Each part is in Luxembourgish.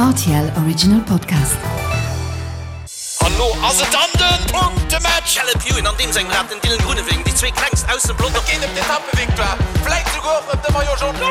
Rtl Original Podcast. An lo ass et dann den Punktematch! Caleb Ewan an deem sengem Rad, den Dylan Groenewegen, déi zwee klengst aus dem Pelotong. Et geet ëm d'Etappevictoire, vläit souguer och ëm de Maillot Jaune.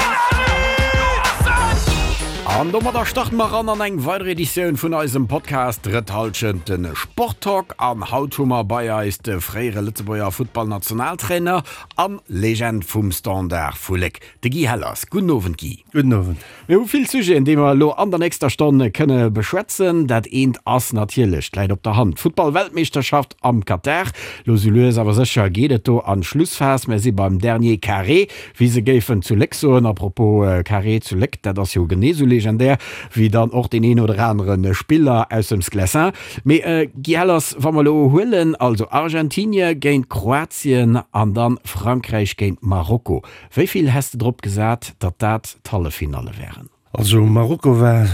An domadder starte mer eran an eng weider Editioun vun eisem Podcast Drëtt Hallschent, de Sporttalk. An haut hu mer bei eis de fréiere Lëtzebuerger Futtballnationaltrainer an Legend vum Standard vu Léck, De Guy Hellers. Gudden Owend Guy. Gudden Owend. Mir hu vill Sujeten, déi mer elo an der nächster Stonn kënne beschwätzen. Dat eent ass natierlech, d'läit op der Hand, d'Futtball-Weltmeeschterschaft am Katar. Lo sou lues awer sécher geet et do an d'Schlussphas. Mir si beim dernier Carré, wéi se géifen zu Léck soen. A propos Carré zu Léck, dat ass jo genee sou legendär wéi dann och deen een oder anere Spiller aus dem Sclessin. Mee Guy Hellers, wa mer elo huelen, also Argentinie géint Kroatien an dann Frankräich géint Marokko, Wéi vill häss de drop gesat, datt dat d'Halleffinalle wären? Also Marokko war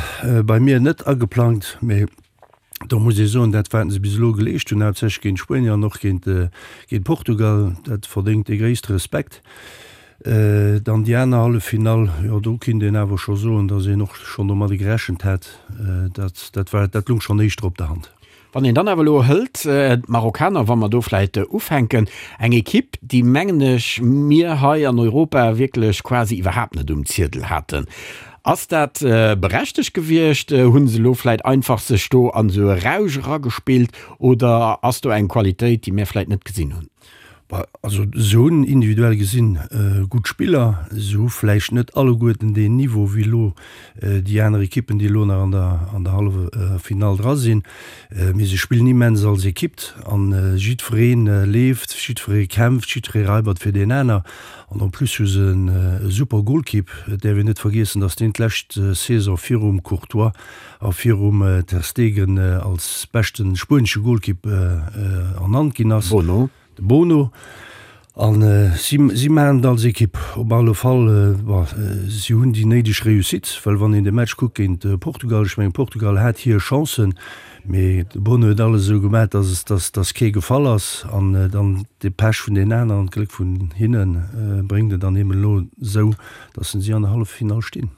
bei mir net ageplangt, mee do muss ee soen, dat wat se bis elo geleescht hunn, haaptsächlech géint Spuenier an och géint Portugal, dat verdéngt de gréisste Respekt. Dann déi aner Halleffinall, jo do kinnt een awer scho soen, datt een och schonn domadde gerechent hätt. Dat dat war dat lung schonn éischter op der Hand. Wann een dann awer elo hëlt, d'Marokkaner, wa mer do vläicht ufänken, eng Ekipp, déi, mengen ech, mir hei an Europa wierklech quasi iwwerhaapt net um Ziedel haten. Ass dat berechtegt gewiescht? Hu se elo vläicht einfach sech do an esou e Rausch eragespillt oder ass do eng Qualitéit, déi mir vläicht net gesinn hunn? Also se hunn individuell gesinn gutt Spiller. Se hu vläicht net alleguerten deen Niveau wéi elo déi aner Ekippen, déi elo nach an der an der Halleffinall dra sinn. Mee se spillen immens als Ekipp an jiddweree leeft, jiddweree kämpft, jiddweree raibert fir deen aner. An en plus hu se e super Golkipp. Et däerf een net vergiessen, datt deen d'lescht Saison virum Courtois a virum Ter Stegen als beschte spuenesche Golkipp ernannt ginn ass. Bono. De Bono. A si, si maachen et als Ekipp. Op alle Fall, bon, si hunn déi néideg Réussite, well wann een de Match kuckt géint Portugal, ech mengen Portugal hat hir Chancen, mee de Bono huet alles esou gemaach, dass, dass, dass kee gefall ass. An dann de Pech vun den aneren an d'Gléck vun hinne bréngt et dann eben elo esou, dass si an der Halleffinall stinn.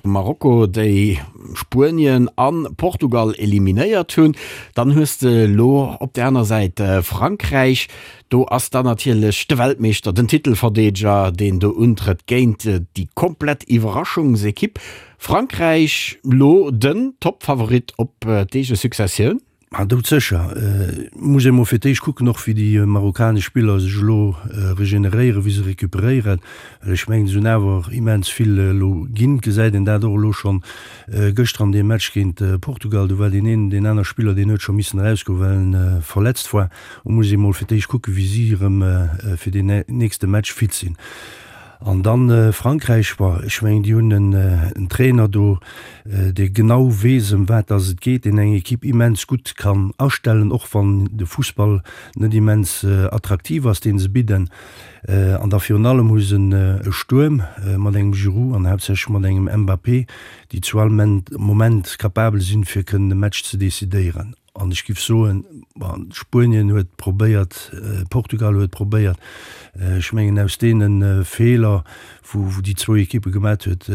Marokko, déi Spuenien a Portugal eliminéiert hunn. Dann hues de elo op der aner Säit Frankräich. Do ass dann natierlech de Weltmeeschter, den Titelverdeedeger, deen do untrëtt géint déi komplett Iwwerraschungsekipp. Frankräich elo den Toppfavorit op d'eege Successioun. Ma doudsécher. Muss ee mol fir d'éischt kucken och wéi déi marokkanesch Spiller sech elo regeneréieren, wéi se recuperéieren. Well ech mengen, se hunn awer immens vill elo ginn. Gesäit een dat och elo schonn gëschter an deem Match géint Portugal. Do war deen een, deen aner Spiller, deen huet scho missen erausgoen, well en verletzt war. Do muss ee mol fir d'éischt kucken, wéi si erëm fir deen nächste Match fit sinn. An dann Frankräich, bon, ech mengen, déi hunn en Trainer do, dee genau weess, ëm wat dass et geet, deen eng Equipe immens gutt kann astellen, och wann de Fussball net immens attraktiv ass, dee se bidden. An da virun allem hu se e Stuerm mat engem Giroud an haaptsächlech mat engem Mbappé, déi zu all Moment capabel sinn, fir kënnen e Match ze decidéieren. An ech giff soen, bon, Spuenien huet probéiert, Portugal huet probéiert. Ech mengen, aus deene Feeler, wou déi zwou Ekippe gemat huet,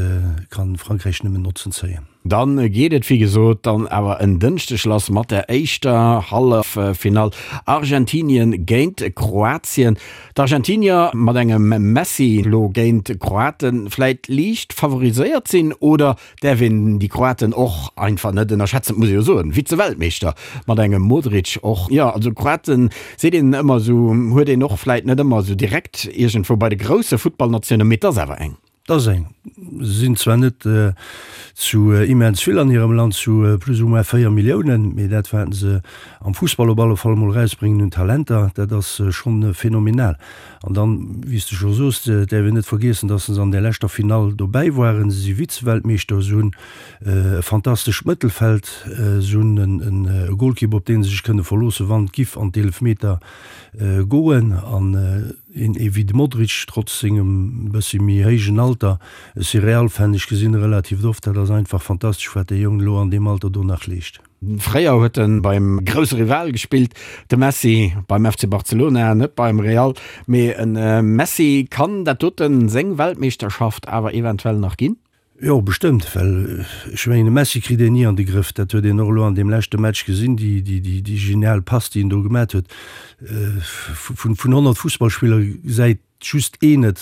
kann Frankräich nëmmen Notzen zéien. Dann geet et wéi gesot dann awer en Dënschdeg lass mat der éischter Halleffinall, Argentinien géint Kroatien. D'Argentinier mat engem Messi lo géint d'Kroaten vläit liicht favoriséiert sinn, oder Däerf een déi Kroaten och einfach net ënnerschätzen, muss ee jo soen, Vize-Weltmeeschter mat engem Modric och. Jo, also Kroaten seet een ëmmer esou, huet een och vläit net ëmmer esou direkt iergendwou bei de grousse Futtballnatiounen, mee et ass awer eng. Et ass eng. Se sinn zwar net zu immens vill an hirem Land, zu plus ou moins 4 Milliounen, mee dat wat se am Fussball op alle Fall emol erausbréngen un Talenter, dat ass schonn phänomenal. An dann, wéi s de scho soos, däerf een net vergiessen, dass se an där leschter Finall dobäi waren. Se si Vize-Weltmeeschter, se hunn e fantastescht Mëttelfeld, se hunn e Golkipp, op dee se sech kënne verloossen, wann et giff an d'Eelefmeter goen. An een ee wéi de Modric, trotz sengem bëssi méi héijen Alter, ech si Real-Fan, ech gesinn e relativ oft, dat ass einfach fantastesch, wat dee Jong elo an deem Alter do nach leescht. Fréier huet en beim grousse Rival gespillt, de Messi beim FC Barcelona, net beim Real. Mee en Messi kann dat doten seng Weltmeeschterschaft awer eventuell nach ginn? Jo, bestëmmt, well ech mengen, de Messi kritt een ni an de Grëff. Dat huet een och elo an deem leschte Match gesinn, déi, déi, déi, déi genial Pass, déi en do gemat huet. Vun, vun 100 Fussballspiller gesäit just een et,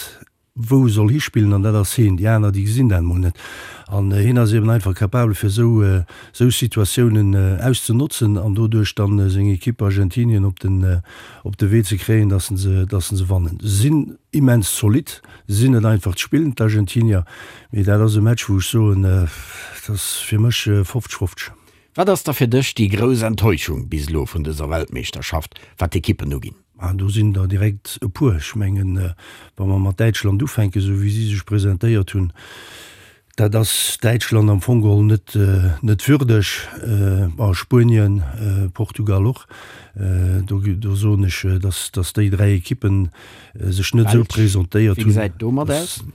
wou e soll hispillen, an dat ass heen. Déi aner, déi gesinn dat emol net. An hien ass eben einfach capabel, fir esou, esou Situatiounen auszenotzen an doduerch dann seng Ekipp Argentinien op den, op de Wee ze kréien, dass se, dass se wannen. Se sinn immens zolidd. Se sinn net einfach ze spillen, d'Argentinier, mee dat ass e Match, wou ech soen, dat ass fir mech 50, 50. Wat ass da fir dech déi grouss Enttäuschung bis elo vun dëser Weltmeeschterschaft, wat d'Ekippen uginn? Ah, do sinn der direkt e puer. Ech mengen, wa mer mat Däitschland ufänken, esou wéi si sech presentéiert hunn, Dat ass Däitschland am Fong geholl net net würdeg, a Spuenien, Portugal och. Do do soen ech, datt datt déi 3 Ekippen sech net esou presentéiert hunn,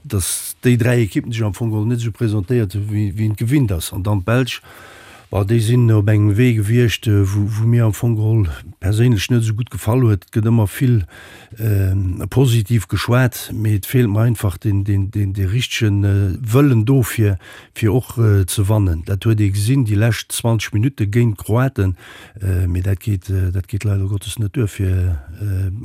datt déi 3 Ekippen sech am Fong geholl net esou presentéiert hunn, wéi wéi een et gewinnt ass. An dann d'Belsch, bon, déi sinn op engem Wee gewiescht, wou wou mir am Fong geholl perséinlech net esou gutt gefall huet. Et gëtt ëmmer vill Positiv geschwat, mee et feelt mer einfach deen richtege Wëllen do fir fir och ze wannen. Dat huet ee gesinn déi lescht 20 Minutte géint d'Kroaten, mee dat geet dat geet leider Gottes net duer fir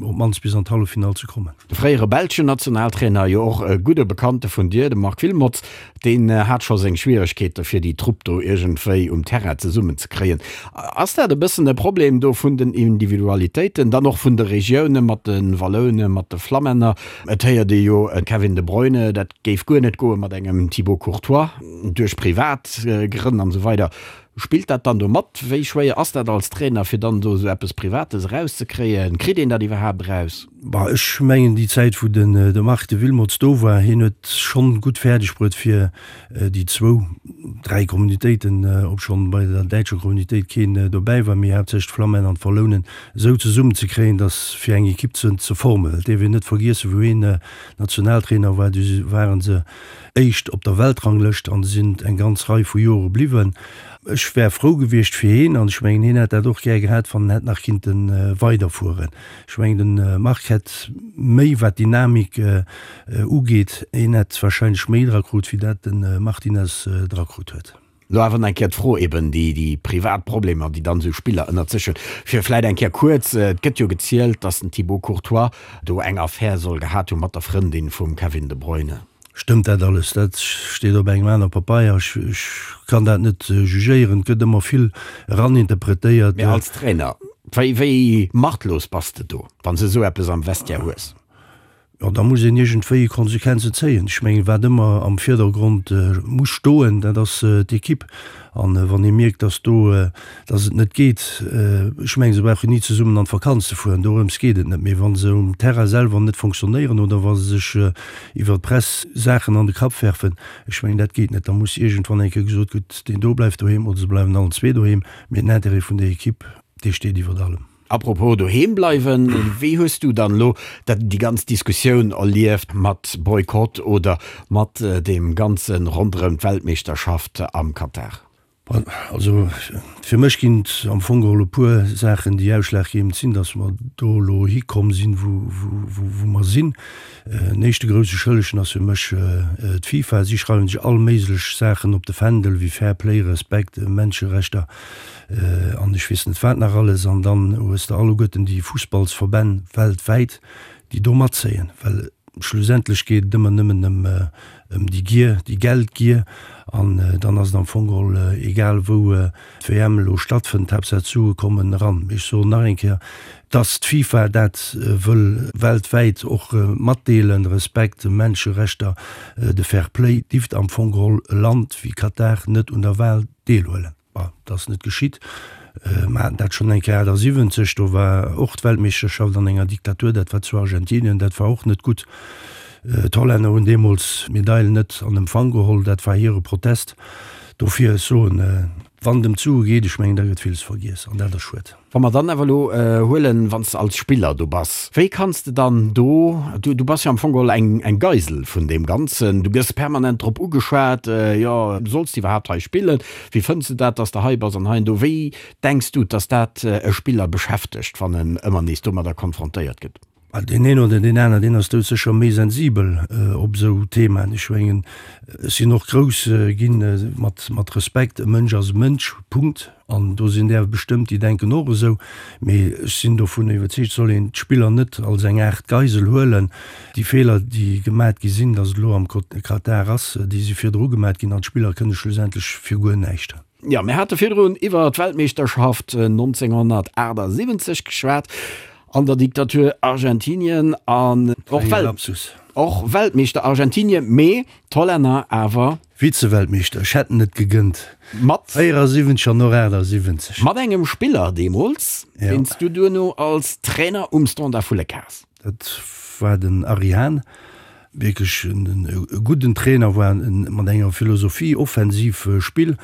op d'mannst bis an d'Halleffinall ze kommen. De fréiere belschen Nationaltrainer, jo och e gudde Bekannte vun dir, de Marc Wilmots, Deen hat scho seng Schwieregkeete fir déi Trupp do iergendwéi um Terrain zesummen ze kréien. Ass dat e bëssen e Problem do vun den Individualitéiten, dann och vun de Regioune mat de Walloune, mat de Flammänner? Et héiert ee jo e Kevin De Bruyne, dat géif guer net goe mat engem Thibaut Courtois, duerch privat Grënn an esou weider. Spillt dat dann do mat? Wéi schwéier ass dat als Trainer, fir dann do esou eppes Privates erauszekréien? Kritt een dat iwwerhaapt eraus? Bah, ech mengen déi Zäit wou den de Marc de Wilmots do war, hien huet schonn gutt fäerdeg bruet fir déi zwou, dräi Communitéiten, obschonn bei der däitscher Communitéit keen dobäi war, mee haaptsächlech d'Flammänner an d'Wallounen, esou zesummen ze kréien, datt fir eng Equipe ze ze formen. Et dierf een net vergiessen, wou hien Nationaltrainer war, du waren se éischt op der Weltranglëscht an sinn eng ganz Rei vu Jore bliwwen. Ech wär frou gewiescht fir hien an ech mengen hien hätt dat och gär gehat, wann en hätt nach kinnte weiderfueren. Ech mengen de Marc hätt méi wat Dynamik ugeet, hien hätt wahrscheinlech méi dra krut wéi dat de Martinez dra krut huet. Lo awer nach eng Kéier d'Fro eben, déi déi privat Problemer, déi dann esou Spiller ënnert sech hunn, fir vläit eng Kéier kuerz, et gëtt jo gezielt, datt den Thibaut Courtois do eng Affär soll gehat hu mat der Frëndin vum Kevin De Bruyne. Stëmmt dat alles? Dat steet op engem aner Papeier. Ech kann dat net jugéieren. Et gëtt ëmmer vill eraninterpretéiert. Mee als Trainer, wéi, wéi machtlos bass de do, wann s de esou eppes am Vestiaire hues? Jo, da muss een iergendwéi Konsequenzen zéien. Ech mengen, wat ëmmer am Virdergrond muss stoen, dat ass d'Ekipp. An wann ee mierkt, dass do, dass et net geet, ech mengen, se brauchen ni zesummen an d'Vakanz ze fueren, dorëms geet et net, mee wa se um Terrain selwer net fonctionnéieren oder wa se sech iwwer d'Press Saachen an de Kapp werfen, ech mengen, dat geet net. Da muss iergendwann eng Kéier gesot, gutt, deen do bleift doheem oder se bleiwen allen zwee doheem, mee den Intérêt vun der Ekipp, dee steet iwwert allem. Apropos doheem bleiwen, wéi hues du dann elo dat déi ganz Diskussioun erlieft mat Boykott oder mat deem ganze ronderëm d'Weltmeeschterschaft am Katar? Also fir mech ginn et am Fong geholl e puer Saachen, déi ausschlaggebend sinn, datt mer do elo hikomm sinn, wou mer sinn. En éischte grousse Schëllegen ass fir mech d'FIFA. Si schreiwen sech all méiglech Saachen op de Fändel, wéi Fair Play, Respekt, Menscherechter an ech weess net wat nach alles. An dann hues de alleguerten déi Fussballsverbänn weltwäit, déi do matzéien, well schlussendlech geet et ëmmer nëmmen ëm ëm déi Gier, déi Geldgier. An dann ass et am Fong geholl egal, wou d'WM elo stattfënnt, Haaptsaach d'Sue kommen eran. Mee ech soen nach eng Kéier, dass d'FIFA dat wëll weltwäit och matdeelen, Respekt, Menscherechter, de Fair Play, dierft am Fong geholl e Land wéi Katar net un der Wal deelhuelen. Bon, dat ass net geschitt. Mer haten dat schonn eng Kéier 78, do war och d'Weltmeeschterschaft an enger Diktatur, dat war zu Argentinien, dat war och net gutt. D'Hollänner hunn deemools d'Medail net an Empfang geholl, dat war hire Protest. Dofir, ech soen, wann et ëm d'Sue geet, ech mengen, da gëtt villes vergiess an dat ass schued. Wa mer dann awer elo huelen, wann s de als Spiller do bass, wéi kanns de dann do, du du bass jo am Fong geholl eng eng Geisel vun deem Ganzen, du gëss permanent drop ugeschwat, jo, solls de iwwerhaapt hei spillen, wéi fënns de dat, dass de hei bass an hei an do. Wéi denks du, dass dat e Spiller beschäftegt, wann en ëmmer nees domadder konfrontéiert gëtt? Deen een oder deen aner, deen ass doudsécher méi sensibel op esou Themaen. Ech mengen, ech sinn och grouss ginn mat Respekt, e Mënsch ass e Mënsch, Punkt. An do sinn där bestëmmt, déi denken och esou. Mee ech sinn dovun iwwerzeegt, et soll een d'Spiller net als eng Aart Geisel huelen. Déi Feeler, déi gemat gi sinn, datt et elo am Katar ass, déi si virdru gemat ginn an d'Spiller kënne schlussendlech fir guer näischt. Jo, mir hate virdrun iwwer d'Weltmeeschterschaft 1978 geschwat an der Diktatur Argentinien an och Welt och Weltmeeschter Argentinien, mee d'Hollänner awer. Vize-Weltmeeschter, ech hätt en et gegënnt. Mat. 74 an och 78. Mat engem Spiller deemools, deen s du duerno als Trainer um Standard vu Léck has. Dat war den Ari Hahn, wierklech e gudden Trainer, war mat enger Philosophie, offensiv Spill.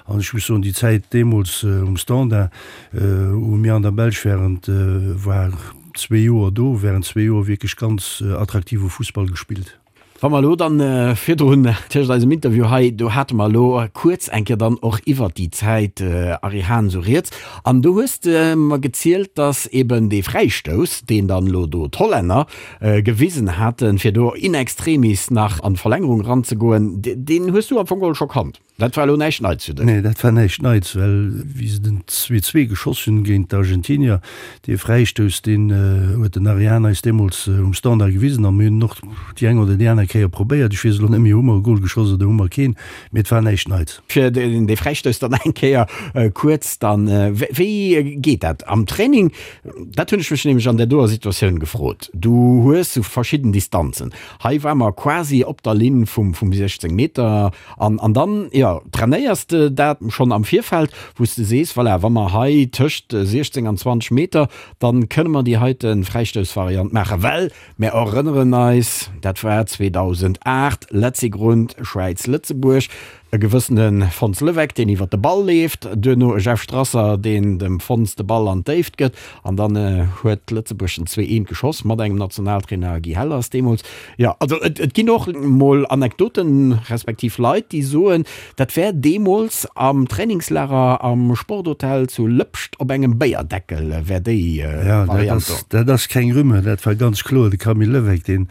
An ech muss soen, déi Zäit deemools um Standard, wou mir an der Belsch während, war zwee Joer do, während zwee Joer wierklech ganz attraktive Fussball gespillt. Wa mer elo dann virdrun tëscht eisem Interview hei, do hate mer elo kuerz eng Kéier dann och iwwert déi Zäit Ari Hahn esou rieds, an do hues de mer gezielt, datt eben dee Fräistouss, deen dann elo do d'Hollänner gewisen haten, fir do in extremis nach an d'Verlängerung eranzegoen, deen hues du am Fong geholl scho kannt. Dat war elo näischt Neits fir dech? Nee, dat war näischt Neits, well wéi se den 2, 2 geschoss hunn géint d'Argentinier, dee Fräistouss, deen huet den Ari Hahn eis deemools um Standard gewisen a mir hunn en och déi eng oder déi aner Kéier probéiert. Ech weess elo net méi, hu mer e Gol geschoss oder hu mer keen, mee et war näischt Neits. Fir dee Fräistouss dann eng Kéier kuerz dann, wéi geet dat am Training? Dat hunn ech mech nämlech an där doer Situatioun gefrot. Du hues sou verschidden Distanzen. Hei war mer quasi op der Linn vum 16 Meter. An, an dann, jo, trainéiers de dat schonn am Virfeld, wou s de sees, voilà, wa mer hei tëscht 16 an 20 Meter, dann kënne mer déi heite Fräistoussvariant maachen. Well mir erënneren eis, dat war 2008, Letzigrund, Schwäiz-Lëtzebuerg, e gewëssene Fons Leweck, deen iwwert de Ball leeft, duerno e Jeff Strasser, deen dem Fons de Ball an d'Déift gëtt, an dann huet Lëtzebuerg den 2, 1 geschoss mat engem Nationaltrainer Guy Hellers deemools. Jo, also et, et ginn och mol Anekdoten, respektiv Leit, déi soen, dat wär deemools am Trainingslager am Sporthotel zu Lëpscht op engem Béierdeckel wär déi Ja, dat Variant do. ass, dat ass keng Rumeur, dat war ganz kloer de Camille Levesque, deen,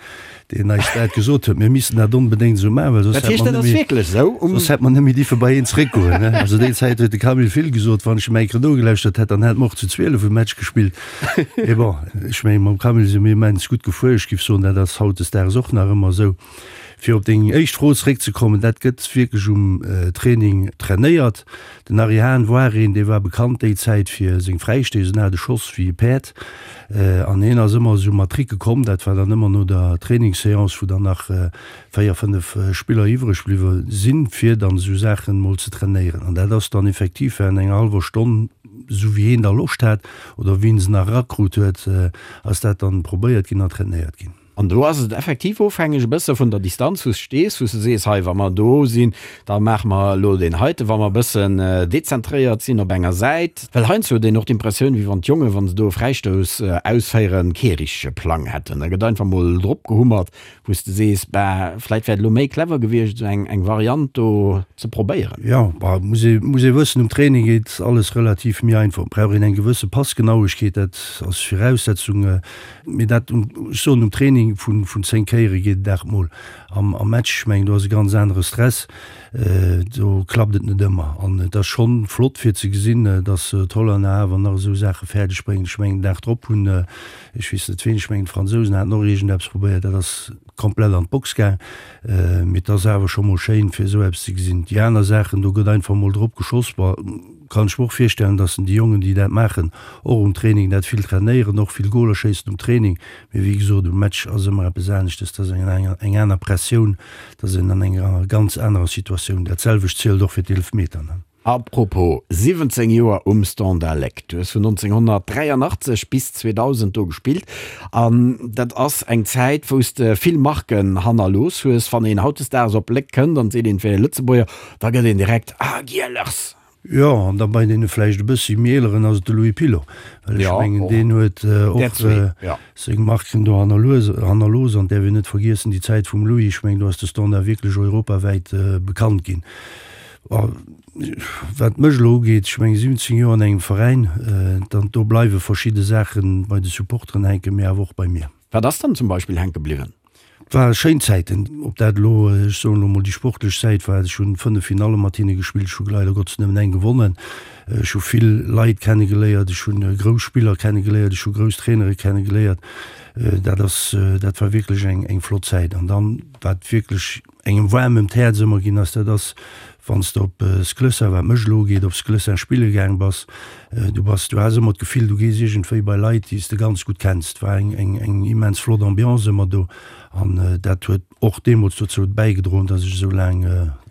deen eis dat gesot huet, mir missten dat onbedéngt esou maachen, well soss Dat hätt heescht, mer dat ass net méi, wierklech esou um. soss hätt mer net méi dierfe bei een zeréckgoen, ne. Also déi Zäit huet de Camille vill gesot, wann ech em eng Kéier nogelauschtert hätt, dann hätt mer och zu 12 e Match gespillt. Mee bon, ech mengen, mam Camille si mir immens gutt gefuer. Ech géif soen, dat ass hautdesdaags och nach ëmmer esou. Fir op deng éischt Fro zeréckzekommen, dat gëtt wierklech um Training trainéiert. Den Ary Hahn war een, dee war bekannt déi Zäit fir seng Fräistéiss. En hat e Schoss wéi e Päerd an hien ass ëmmer esou mat Tricke komm. Dat war dann ëmmer no der Trainingsseance, wou dann nach véier, fënnef Spiller iwwreg bliwwe sinn, fir dann esou Saachen emol ze trainéieren. An dat ass dann effektiv während enger hallwer Stonn, esou wéi heen da Loscht hat oder wéi en se nach erakrut huet, ass dat dann probéiert ginn an trainéiert ginn. An do ass et effektiv ofhängeg e bësse vun der Distanz, wou s de stees, wou s de sees, hei wa mer do sinn, da maache mer elo deen heiten, wa mer e bëssen dezentréiert sinn op enger Säit. Well heiansdo huet een och d'Impressioun, wéi wann d'Jongen, wa se do e Fräistouss ausféieren, kee richtege Plang hätten. Da gëtt einfach mol drop gehummert, Wou s de sees, bah, vläit wär et elo méi clever gewiescht, esou eng, eng Variant do ze probéieren. Jo, bah, muss ee, muss ee wëssen, um Training geet alles relativ méi einfach. Et brauch een eng gewësse Passgenauegkeet, dat ass Viraussetzung. Mee dat, ech soen, um Training vun, vun 10 Kéiere geet et 8 Mol. Am, am Match, ech mengen, do ass e ganz anere Stress, do klappt et net ëmmer. An et ass schonn flott fir ze gesinn, datt d'Hollänner awer nach esou Saache fäerdeg bréngen. Ech mengen, den Dag drop hunn, Ech weess net ween, ech mengen d'Fransousen haten och iergendeppes probéiert, dat ass komplett an d'Box gaang. Mee et ass awer scho mol schéin fir esou eppes ze gesinn. Déi aner Saachen, do gëtt einfach mol drop geschoss. Bon, kann ech mer och virstellen, datt déi Jongen déi dat maachen och um Training dat vill trainéieren, och vill Goler schéissen um Training. Mee wéi gesot, um Match ass ëmmer eppes aneschtes, dat ass eng eng aner Pressioun, dat ass een an enger ganz anerer Situatioun. Dat selwecht zielt och fir d'Eelfmeter. A propos, 17 Joer um Standard Léck, du hues vun 1983 bis 2000 do gespillt an dat ass eng Zäit wou s de vill Marken hannerlooss hues. Wann een hautdesdaags op Léck kënnt an seet een et wär e Lëtzebuerger, da gëtt een direkt, Ah Gielers! Jo, an da bei deene vläicht e bëssi méi eeleren ass et de Louis Pilot, well ech mengen deen huet och seng Marken do hannerlooss an däerf een net vergiessen déi Zäit vum Louis, ech mengen do ass de Standard wierklech europawäit bekannt ginn. Wat mech elo ugeet, ech mengen 17 Joer an engem Veräin, dann do bleiwe verschidde Saache bei de Supporteren hänken, mee awer och bei mir. Wat ass dann zum Beispill hänke bliwwen? Et ware schéin Zäiten, ob dat elo, ech soen elo mol, déi sportlech Säit war. Ech hunn 5 Finalle mat hinne gespillt, ech hu leider Gottes nëmmen eng gewonnen. Ech hu vill Leit kennegeléiert, ech hu grouss Spiller kennegeléiert, ech hu grouss Trainere kennegeléiert. Dat ass, dat war wierklech eng, eng flott Zäit. An dann, wat wierklech engem waarm ëm d'Häerz ëmmer ginn ass, dat ass, wann s de op Sclessin, wat mech elo ugeet, op Sclessin spille gaang bass. Du bass, du has ëmmer d'Gefill, du gees iergendwéi bei Leit, déi s de ganz gutt kenns. Et war eng, eng, eng immens flott Ambiance ëmmer do an dat huet och deemools dozou bäigedroen, dass ech esou laang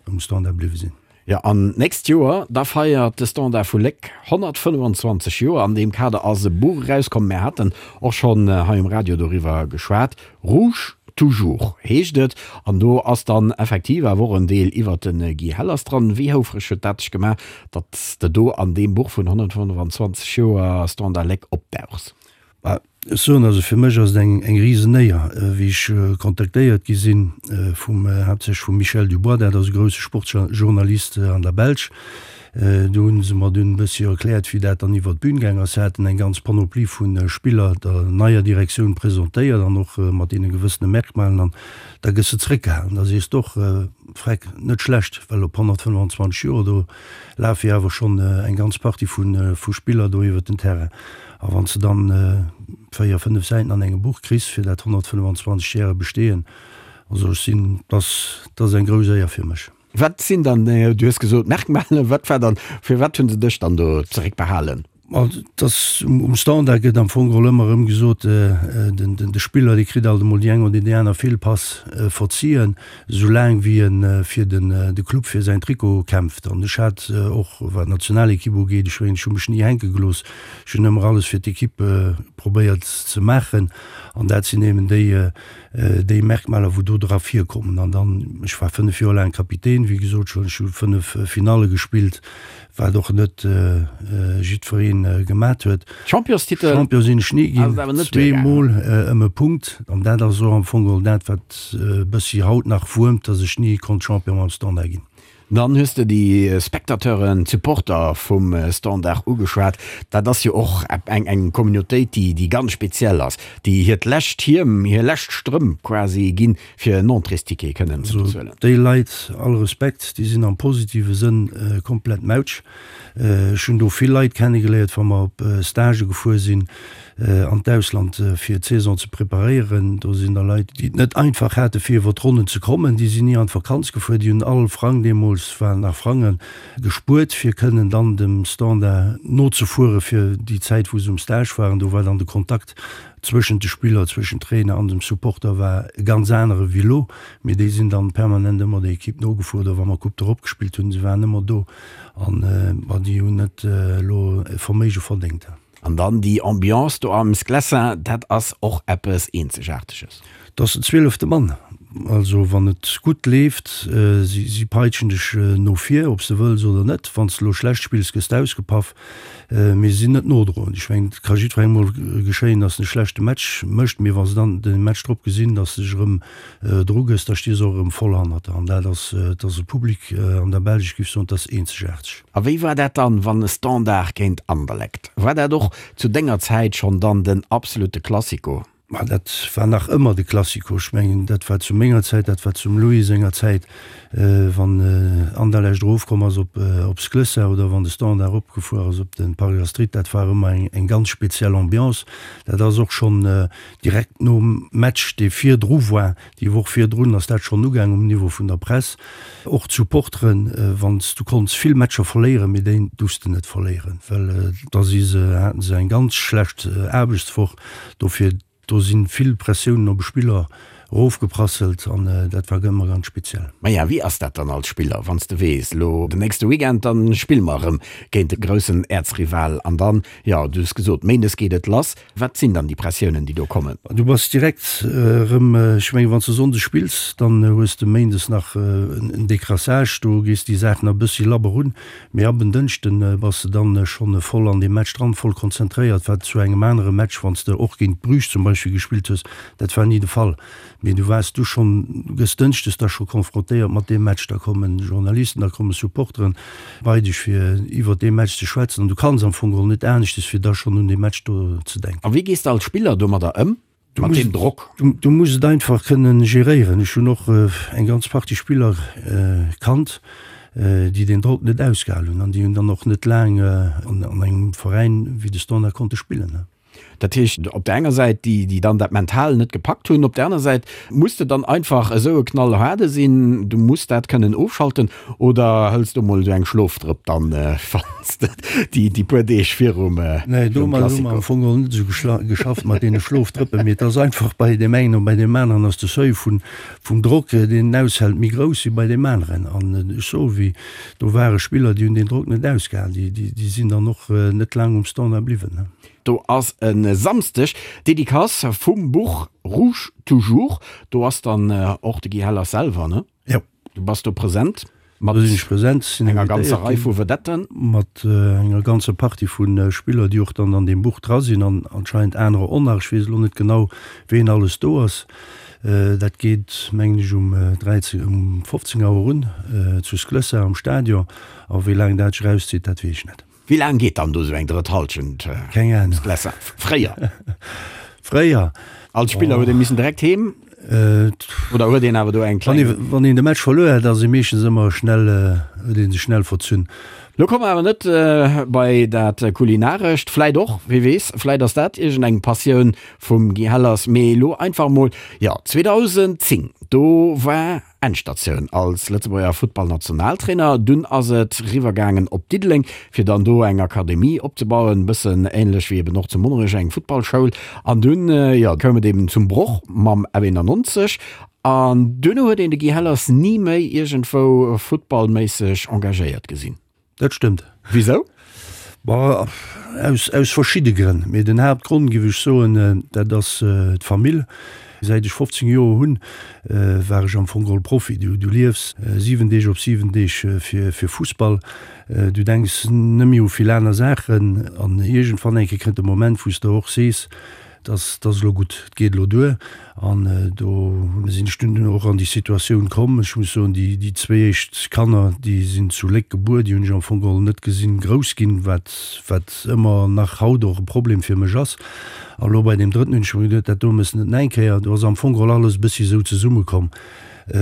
um Standard bliwwe sinn. Jo, an d'nächst Joer, da feiert de Standard vu Léck 125 Joer. An deem Kader ass e Buch erauskomm, mär haten och schonn hei um Radio doriwwer geschwat, Rouge toujours heescht et. An do ass dann effektiv awer och en Deel iwwert de Guy Hellers dran. Wéi houfreg huet dat dech gemaach, datt s de do an deem Buch vun 125 Joer Standard Léck opdauchs? Bah, ech soen, also fir mech ass et eng, eng Risenéier, wéi ech kontaktéiert gi sinn vum, haaptsächlech vum Michel Dubois, dat ass e grousse Sportjournalist an der Belsch. Do hunn se mer dunn e bëssi erkläert, wéi dat dann iwwert d'Bün gaang ass. Se haten eng ganz Panoplie vu Spiller der neier Direktioun presentéiert an och mat deene gewëssene Merkmalen. An da gëss de zréckgehalen. Da sees de och, Freck, net schlecht, well op 125 Joer, do lafe jo awer schonn eng ganz Partie vu Spiller do iwwert den Terrain. A wann s de dann 4, 5 Säiten an engem Buch kriss fir dat 125 järege Bestehen, also ech sinn, dass, dat ass eng grouss Éier fir mech. Wat sinn dann, du hues gesot Merkmalen, wat war dann, firwat hunn se dech dann do zeréckbehalen? Ma et ass, um Standard gëtt am Fong geholl ëmmer erëm gesot, den, de Spiller, dee kritt alt emol déi eng oder déi aner Feelpass verzien, esou laang wéi e fir den, de Club, fir säin Trikot kämpft. An ech hat och, wat d'Nationalekipp ugeet, ech mengen, ech hu mech ni hänke gelooss, Ech hunn ëmmer alles fir d'Ekipp probéiert ze maachen an dat sinn eben déi, déi Merkmaler, wou do dra virkommen. An dann, ech war 5 Joer laang Kapitän, wéi gesot schonn, ech hu 5 Finalle gespillt, wat och net jiddweree gemat huet. Championstitel Champion sinn ech ni ginn, zweemol ëm e Punkt. An dat ass och am Fong geholl dat, wat e bëssi haut nach wuermt, datt ech ni konnt Champion mam Standard ginn. Dann hues de déi Spectateuren, d'Supporter vum Standard ugeschwat. Dat ass jo och eng eng Communautéit, déi déi ganz speziell ass, déi hiert lescht Hiem, hir lescht Strëmp quasi ginn, fir en Entréesticket kënnen ze bezuelen. Déi Leit, all Respekt, déi sinn am positive Sënn komplett mautsch. Ech hunn do vill Leit kennegeléiert, wa mer op Stagë gefuer sinn an d'Ausland fir d'Saison ze preparéieren. Do sinn da Leit, déi et net einfach hate fir iwwer d'Ronnen ze kommen. Déi sinn ni an d'Vakanz gefuer. Déi hunn all Frang, deemools waren nach Frangen, gespuert fir kënnen dann dem Standard nozefuere fir déi Zäit wou se um Stage waren. Do war dann de Kontakt zwëschent de Spiller, zwëschent Trainer an dem Supporter war e ganz anere wéi elo. Mee déi sinn dann permanent ëmmer der Equipe nogefuer oder wa mer Coupe d'Europe gespillt hunn, se waren ëmmer do an ma déi hunn net elo e Verméige verdéngt. An dann déi Ambiance do am Sclessin, dat ass och eppes Eenzegaarteges. Et ass den zwielefte Mann. Also wann et gutt leeft, si si peitschen dech no vir, ob s de wëlls oder net. Wann s de elo schlecht spills, gëss de ausgepaff. Mee si sinn net nodroend. Ech mengen, et ka jiddwerengem mol geschéien, datt en e schlechte Match mécht, mee wa se dann de Match drop gesinn, datt s de dech erëm dru gëss, da sti se och erëm voll hannert der. An dat ass, et ass e Public an der Belsch, ech géif soen, et ass eenzegaarteg. A wéi war dat dann, wann e Standard géint Anderlecht? War dat och zu denger Zäit schonn dann den absolute Classico? Ma dat war nach ëmmer de Classico. Ech mengen, dat war zu menger Zäit, dat war zum Louis senger Zäit, wann Anderlecht erofkomm ass op op Sclessin oder wann de Standard eropgefuer ass op de Parc Astrid, dat war ëmmer eng eng ganz speziell Ambiance. Dat ass och schonn direkt nom Match, dee virdru war, Déi Woch virdrun ass dat schonn ugaang um Niveau vun der Press. Och d'Supporteren, wann s du konnts vill Matcher verléieren, mee déi duerfs de net verléieren, well da si se, haten se eng ganz schlecht Aarbechtswoch. Dofir, do si vill Pressiounen op e Spiller erofgeprasselt an dat war ëmmer ganz speziell. Maja, wéi ass dat dann als Spiller, wann s de weess, elo den nächste Weekend, dann spille mer erëm géint de groussen Äerzrival an dann, jo, du hues gesot, méindes geet et lass. Wat sinn dann déi Pressiounen, déi do kommen? Du bass direkt erëm, ech mengen, wann s de sonndes spills, dann hues de méindes nach en Décrassage, do gees déi Saach nach e bëssi labber un, mee ab en Dënschden bass de dann schonn voll an deem Match dran, voll konzentréiert, wat zu engem anere Match, wann s de och géint Bruges zum Beispill gespillt hues, dat war ni de Fall. Mee du waars du schonn, du gëss dënschdes da scho konfrontéiert mat deem Match, da kommen Journalisten, da komme Supporteren bei dech fir iwwert dee Match ze schwätzen an du kanns am Fong geholl net aneschtes fir da schonn un dee Match do ze denken. A wéi gees de als Spiller domadder ëm? Mat deem Drock? Du muss et einfach kënnen geréieren. Ech hunn och eng ganz Partie Spiller kannt, déi deen Drock net ausgehal hunn an déi hunn dann och net laang an engem Veräin wéi de Standard konnte spillen. Dat heescht op der enger Säit déi, déi dann dat mental net gepackt hunn, op der aner Säit muss de dann einfach esou e Knallhaarde sinn, du muss dat kënnen ofschalten oder hëls du mol esou eng Schlofdrëpp dann, wann s de déi, déi puer Deeg virum Nee, domat hu mer am Fong och net esou geschafft mat deene Schlofdrëppen, mee et ass einfach bei deem engen an bei deem aneren ass de Seuil vun, vum Drock, deen en aushält, méi grouss wéi bei deem aneren. An ech soe wéi, do ware Spiller, déi hunn deen Drock net ausgehalen, déi, déi, déi sinn dann och net laang um Standard bliwwen. Do ass e Samsdeg d'Dedicace vum Buch Rouge toujours. Do ass dann och de Guy Hellers selwer, ne? Jo. Du bass do present mat Do sinn ech present, sinn enger ganzer Rei vu Vedetten. Mat enger ganzer Partie vu Spiller, déi och dann an deem Buch dra sinn an anscheinend anerer och nach. Ech weess elo net genau, ween alles do ass. Dat geet, mengen ech, um 13, um 15 Auer un zu Sclessin am Stadion. A wéi laang dat sech erauszitt, dat weess ech net. Wéi laang geet dann do sou eng drëtt Halschent? Keng Ahnung. Fréier? Fréier? Als Spiller huet ee missen direkt heem? Oder huet een awer do eng kleng. Wann een de Match verluer hat, ass ee meeschtens ëmmer schnell, huet ee sech schnell verzunn. Lo komme mer awer net bei dat Kulinarescht, vläit och, wie weess, vläit ass dat iergendeng Passioun vum Guy Hellers, mee elo einfach emol, jo, 2010, do war Endstatioun als Lëtzebuerger Futtballnationaltrainer. Dunn ass et riwwer gaangen op Diddeleng, fir dann do eng Akademie opzebauen, bëssen ähnlech wéi eben och zu Monnerech eng Futtballschoul. An dunn, jo, koum et eben zum Broch mam F91 an duerno huet een de Guy Hellers ni méi iergendwou futtballméisseg engagéiert gesinn. Dat stëmmt. Wisou? Bah, aus, aus verschidde Grënn. Mee den Haaptgrond, géif ech soen, dat ass d'Famill. Säit ech 15 Joer hunn, war ech am Fong geholl Profi. Du, du liefs 7 Deeg op 7 Deeg fir, fir Fussball. Du denks net méi u vill aner Saachen. An iergendwann eng Kéier kënnt de Moment, wou s de och sees, 't ass, 't ass elo gutt, 't geet elo duer. An do sinn ech dunn och an déi Situatioun komm. Ech muss soen, déi, déi zwéi éischt Kanner, déi sinn zu Léck gebuer, déi hunn ech am Fong geholl net gesinn grouss ginn, wat, wat ëmmer nach haut och e Problem fir mech ass. A lo bei deem drëtten hunn ech mer geduet, dat do mëss net nach eng Kéier. Do ass am Fong geholl alles e bëssi esou zesummekomm,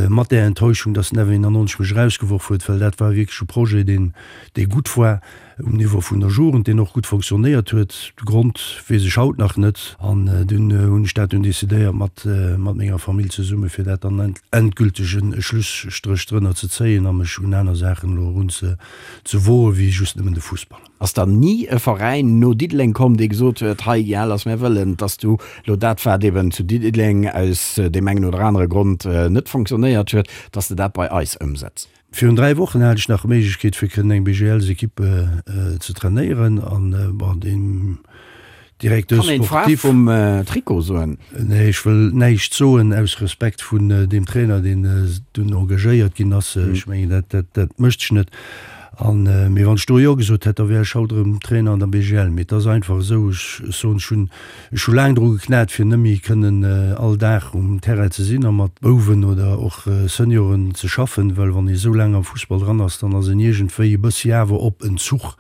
mat där Enttäuschung, dass den F91 mech erausgeworf huet, well dat war wierklech e Projet, deen, dee gutt war. Um Niveau vun der Jugend, deen och gutt fonctionnéiert huet. De Grond weess ech haut nach net. An dunn hunn ech dat dunn decidéiert mat mat menger Famill zesumme fir dat dann endgülteg e Schlusstréch drënner ze zéien a mech un aner Saachen elo erun ze ze woe wéi just nëmmen de Fussball. Ass dann ni e Veräin no Diddeleng komm, dee gesot huet, hei Jales, mär wëllen, dass du elo dat wat eben zu Diddeleng aus deem engen oder anere Grond net fonctionnéiert huet, dass de dat bei eis ëmsetz? Virun 3 Wochen hat ech nach d'Méiglechkeet fir kënnen eng BGLs-Equipe ze trainéieren an bon deen Directeur Kann een d'Faarf sportif. vum Trikot soen? Nee, ech wëll näischt soen aus Respekt vun deem Trainer deen dunn engagéiert ginn ass. Ech mengen dat dat dat mécht sech net. An mee wann ech do jo gesot hätt, da wär ech haut erëm Trainer an der BGL. Mee et ass einfach esou, ech soen ech hunn Ech hu laang dru geknat, fir net méi kënnen all Dag um Terrain ze sinn a mat Bouwen oder och Senioren ze schaffen, well wann ee sou laang am Fussball dran ass, dann ass een iergendwéi e bëssi awer op Entzuch.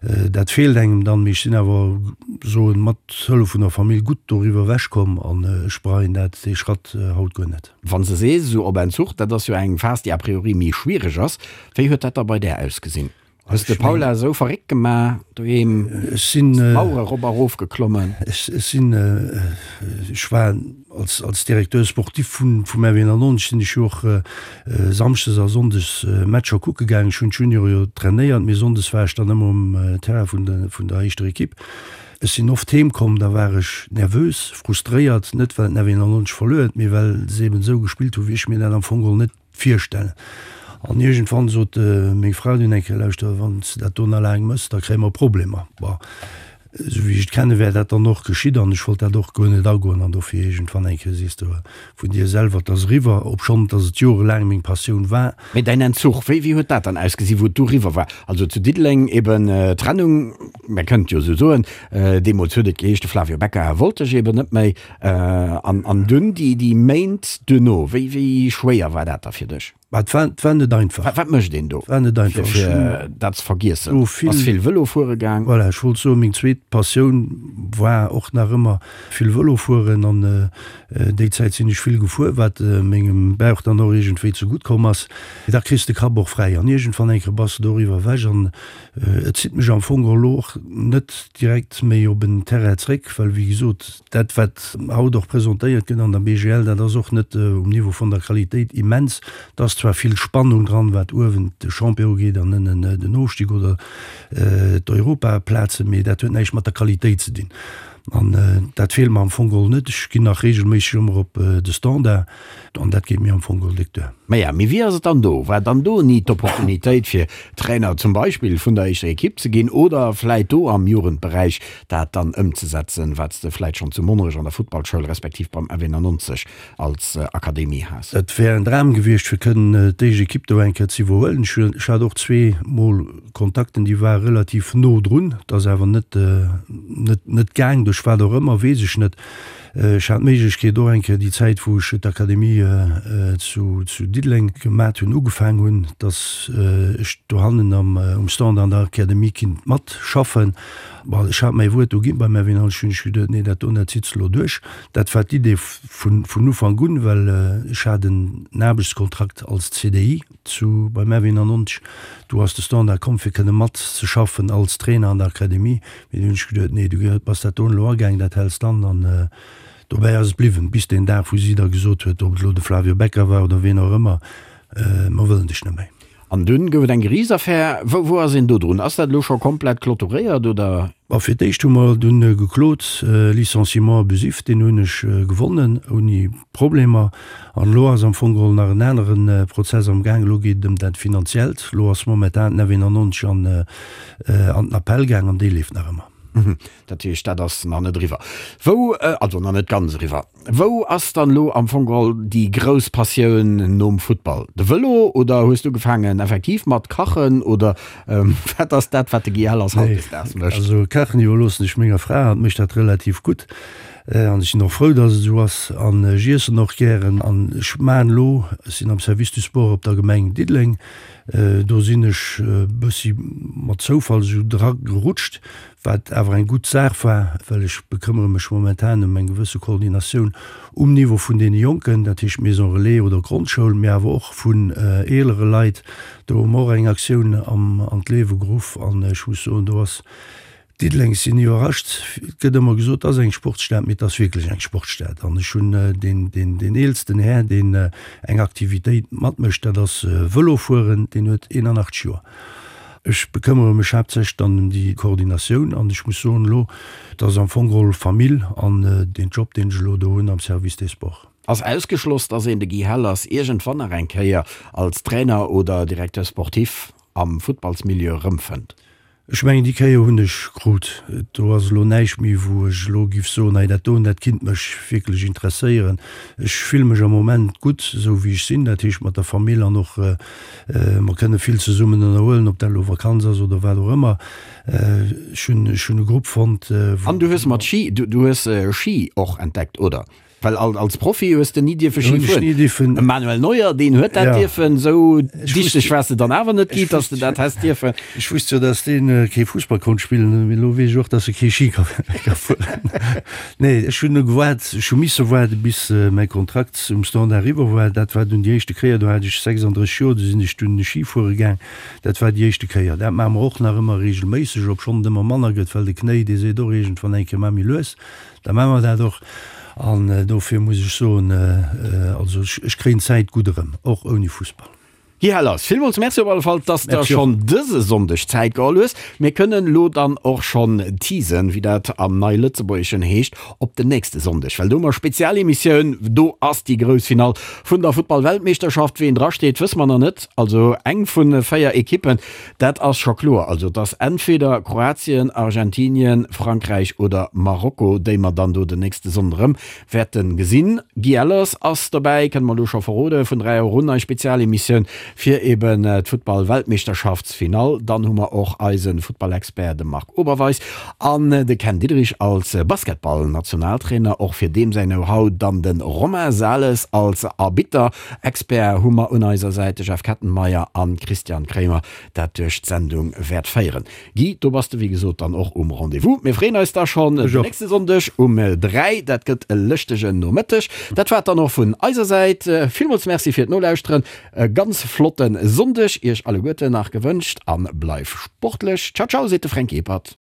Dat feelt engem dann, mee ech sinn awer, soen, mat Hëllef vun der Famill gutt doriwwer ewechkomm an ech bereien dat, dee Schratt haut guer net. Wann s de sees, esou op Entzuch, dat ass jo eng Phas, déi a priori méi schwiereg ass. Wéi huet dat da bei där ausgesinn? Hues de Paula esou verréckt gemaach doheem? Ech sinn. D'Mauere rop a rof geklommen? Ech sinn, ech war als, als Directeur sportif vun, vum RW 91 sinn ech jo och samschdes a sonndes Matcher kucke gaangen. Ech hunn d'Juniore jo trainéiert, mee sonndes war ech dann ëmmer um Terrain vun de, vun der éischter Equipe. Ech sinn oft heem komm, da war ech nervös, frustréiert, net well den RW 91 verluer huet, mee well se eben esou gespillt hu wéi ech mir dat am Fong geholl net Virstellen. An iergendwann sot meng Fra dunn eng Kéier, Lauschter, wann s de dat do nach laang méchs, da kréie mer Problemer. Bon, esou wéi ech et kenne wär dat dann och geschitt an ech wollt dat och guer net agoen. An dofir iergendwann eng Kéier sees de vun dir selwer, et ass eriwwer, obschonn dass et jorelaang meng Passioun war. Mee däin Entzuch, wéi wéi huet dat dann ausgesinn, wou et du eriwwer war? Also zu Diddeleng eben Trennung, mä kënnt jo esou soen, deemools huet et geheescht, de Flavio Becca wollt dech eben net méi. An an dunn déi déi Méint duerno, wéi wéi schwéier war dat da fir dech? Bah, et war, et war net einfach. Wat, wat mécht een do? Et war net einfach. Fir, fir dat ze vergiessen? Do vill, Bass vill Vëlo fuere gaang? Voilà, ech wollt soen, meng zweet Passioun war och nach ëmmer vill Vëlo fueren an déi Zäit sinn ech vill gefuer, wat mengem Bauch dann och iergendwéi zegutt komm ass. Da kriss de Kapp och fräi an iergendwann eng Kéier bass de doriwwer ewech an et zitt mech am Fong och elo och net direkt méi op en Terrain zréck, well wéi gesot, Dat, wat haut och presentéiert gëtt an der BGL, dat ass och net um Niveau vun der Qualitéit immens. Et ass zwar vill Spannung dran, wat uewen de Champion ugeet an ënnen den Ofstig oder d'Europaplazen, mee dat huet näischt mat der Qualitéit ze dinn. An dat feelt mer am Fong geholl net. Ech ginn nach reegelméisseg ëmmer op de Standard an dat geet mir am Fong geholl déck duer. Maja, mee wéi ass et dann do? War dann do ni d'Opportunitéit fir Trainer zum Beispill vun der éischter Ekipp ze ginn oder vläit do am Jugendberäich dat dann ëmzesetzen, wat s de vläit schonn zu Monnerech an der Futtballschoul respektiv beim F91 als Akademie has. Et wär en Dram gewiescht, fir kënnen d'éischt Ekipp do eng Kéier ze iwwerhuelen. Ech hat och zweemol Kontakten, déi ware relativ no drun. Et ass awer net, net, net gaang, duerch wat och ëmmer, weess ech net. Ech hat d'Méiglechkeet och eng Kéier déi Zäit, wou ech d'Akademie zu, zu Diddeleng gemat hunn, ugefaang hunn, dass ech dohannen am, um Stand an der Akademie kinnt matschaffen. Bon, ech hat mäi Wuert do ginn beim Erwin Halsch, hunn ech geduet, nee, dat do, dat zitt se elo duerch. Dat war d'Idee vun, vun Ufank un, well ech hat en Aarbechtskontrakt als CDI zu, beim Erwin an Onch. Do ass de Standard komm, fir kënne matzeschaffen als Trainer an der Akademie. Mee du hunn ech geduet, nee, du bass dat do elo agaang, dat häls d'an. An dobäi ass et bliwwen, bis deen Dag, wou si da gesot huet, ob et elo de Flavio Becca war oder wien och ëmmer, Mer wëllen dech net méi. An dunn gouf et eng Geriichtsaffär. Wou, wou ass een do drun? Ass dat elo scho komplett clôturéiert oder? Bon, fir d'éischt hu mer dunn geklot, Licenciement abusif, deen hunn ech gewonnen ouni Problemer. An elo ass am Fong geholl nach en anere Prozess am Gaang, elo geet et ëm dat Finanziellt. Elo ass momentan den F91 an an den Appell gaang an dee leeft nach ëmmer. Dat heescht, dat ass nach net eriwwer. Wou, also nach net ganz eriwwer. Wou ass dann elo am Fong geholl déi grouss Passioun nom Futtball? De Vëlo oder hues du ugefaangen effektiv mat kachen oder wat ass dat wat de Guy Hellers hautdesdaags mécht? Also kachen iwwerloossen ech menger Fra, hatt mécht dat relativ gutt an ech sinn och frou dass et esou ass an ech iessen och gären an ech maachen elo, ech sinn am Service du Sport op der Gemeng Diddeleng, do sinn ech e bëssi mat Zoufall esou dra gerutscht, Wat awer eng gutt Saach war, well ech bekëmmere mech momentan ëm eng gewësse Koordinatioun um Niveau vun deene Jonken, dat heescht Maison Relais oder Grondschoul, mee awer och vun eelere Leit. Do hu mer och eng Aktioun an d'Liewe geruff an ech muss soen, do ass Diddeleng, ech sinn iwwerrascht, et gëtt ëmmer gesot, et ass eng Sportsstad, mee et ass wierklech eng Sportsstad. An ech hunn deen eelsten Här, deen eng Aktivitéit matmécht, dat ass Vëlofueren, deen huet 81 Joer. Ech bekëmmere mech haaptsächlech dann ëm déi Koordinatioun an ech muss soen elo, et ass am Fong geholl Famill an deen Job, deen ech elo do hunn am Service des Sports. Ass ausgeschloss, dass een de Guy Hellers iergendwann nach eng Kéier als Trainer oder Directeur sportif am Futtballsmilieu erëmfënnt? Ech mengen, déi Kéier hunn ech krut. Do ass elo näischt méi, wou ech elo giff soen, hei dat doen, dat kinnt mech wierklech interesséieren. Ech fille mech am Moment gutt, esou wéi ech sinn, dat heescht mat der Famill an och mer kënne vill zesummen ënnerhuelen, ob dat elo Vakanz ass oder wat och ëmmer. Ech hunn, ech hunn e Grupp fonnt, wou. An du hues mat Ski, du hues Ski och entdeckt, oder? Well als Profi hues de ni dierfe Ski fueren. De Manuel Neuer, deen huet dat dierfen. Esou dichteg waars de dann awer net gi, datt s de dat häss dierfen. Ech wusst jo, datt dee kee Fussball konnt spillen, mee elo weess ech och, datt e kee Ski ka fueren. Nee, ech hunn gewaart, ech hu misse waarde bis mäi Kontrakt um Standard eriwwer war. Dat war dunn déi éischte Kéier, do hat ech 36 Joer, do sinn ech dunn Ski fuere gaang. Dat war déi éischte Kéier. Dat maache mer och nach ëmmer reegelméisseg, obschonn et ëmmer manner gëtt, well de Knéi, dee seet och iergendwann eng Kéier, Maach méi lues. Da maache mer dat och. An dofir muss ech soen, also ech kréien d'Zäit gutt erëm, och ouni Fussball. Guy Hellers, villmools Merci op alle Fall, dass de schonn dëse Sonndeg Zäit geholl hues. Mir kënnen elo dann och schonn teasen, wéi dat am Nei-Lëtzebuergeschen heescht, op den nächste Sonndeg, well do hu mer Spezialemissioun. Do ass déi grouss Finall vun der Futtball-Weltmeeschterschaft. Ween drasteet, wësse mer nach net. Also eng vu 4 Ekippen. Dat ass scho kloer. Also et ass entweder Kroatien, Argentinien, Frankräich oder Marokko, déi mer dann do den nächste Sonnden erëm wäerte gesinn. Guy Ellers ass dobäi, kënne mer elo scho verroden, vun 3 Auer un, eis Spezialemissioun. fir eben d'Futtball-Weltmeeschterschaftsfinall. Dann hu mer och eise Futtballexpert, de Marc Oberweis, an de Ken Diederich als Basketball-Nationaltrainer, och fir deem säin Know-how. Dann de Romain Sales als Arbitter. Expert hu mer un eiser Säit de Jeff Kettenmeyer an Christian Kremer, dat duerch d'Sendung wäert féieren. Guy, do bass de wéi gesot dann och um Rendez-vous. Mir freeën eis da schonn den nächste Sonndeg um 3. Dat gëtt e lëschtegen Nomëtteg. Dat war et dann och vun eiser Säit. Villmools Merci fir d'Nolauschteren. E ganz flotte Sonndeg iech alleguerten nach gewënscht a bleif sportlech. Ciao ciao seet de Fränk Ebert.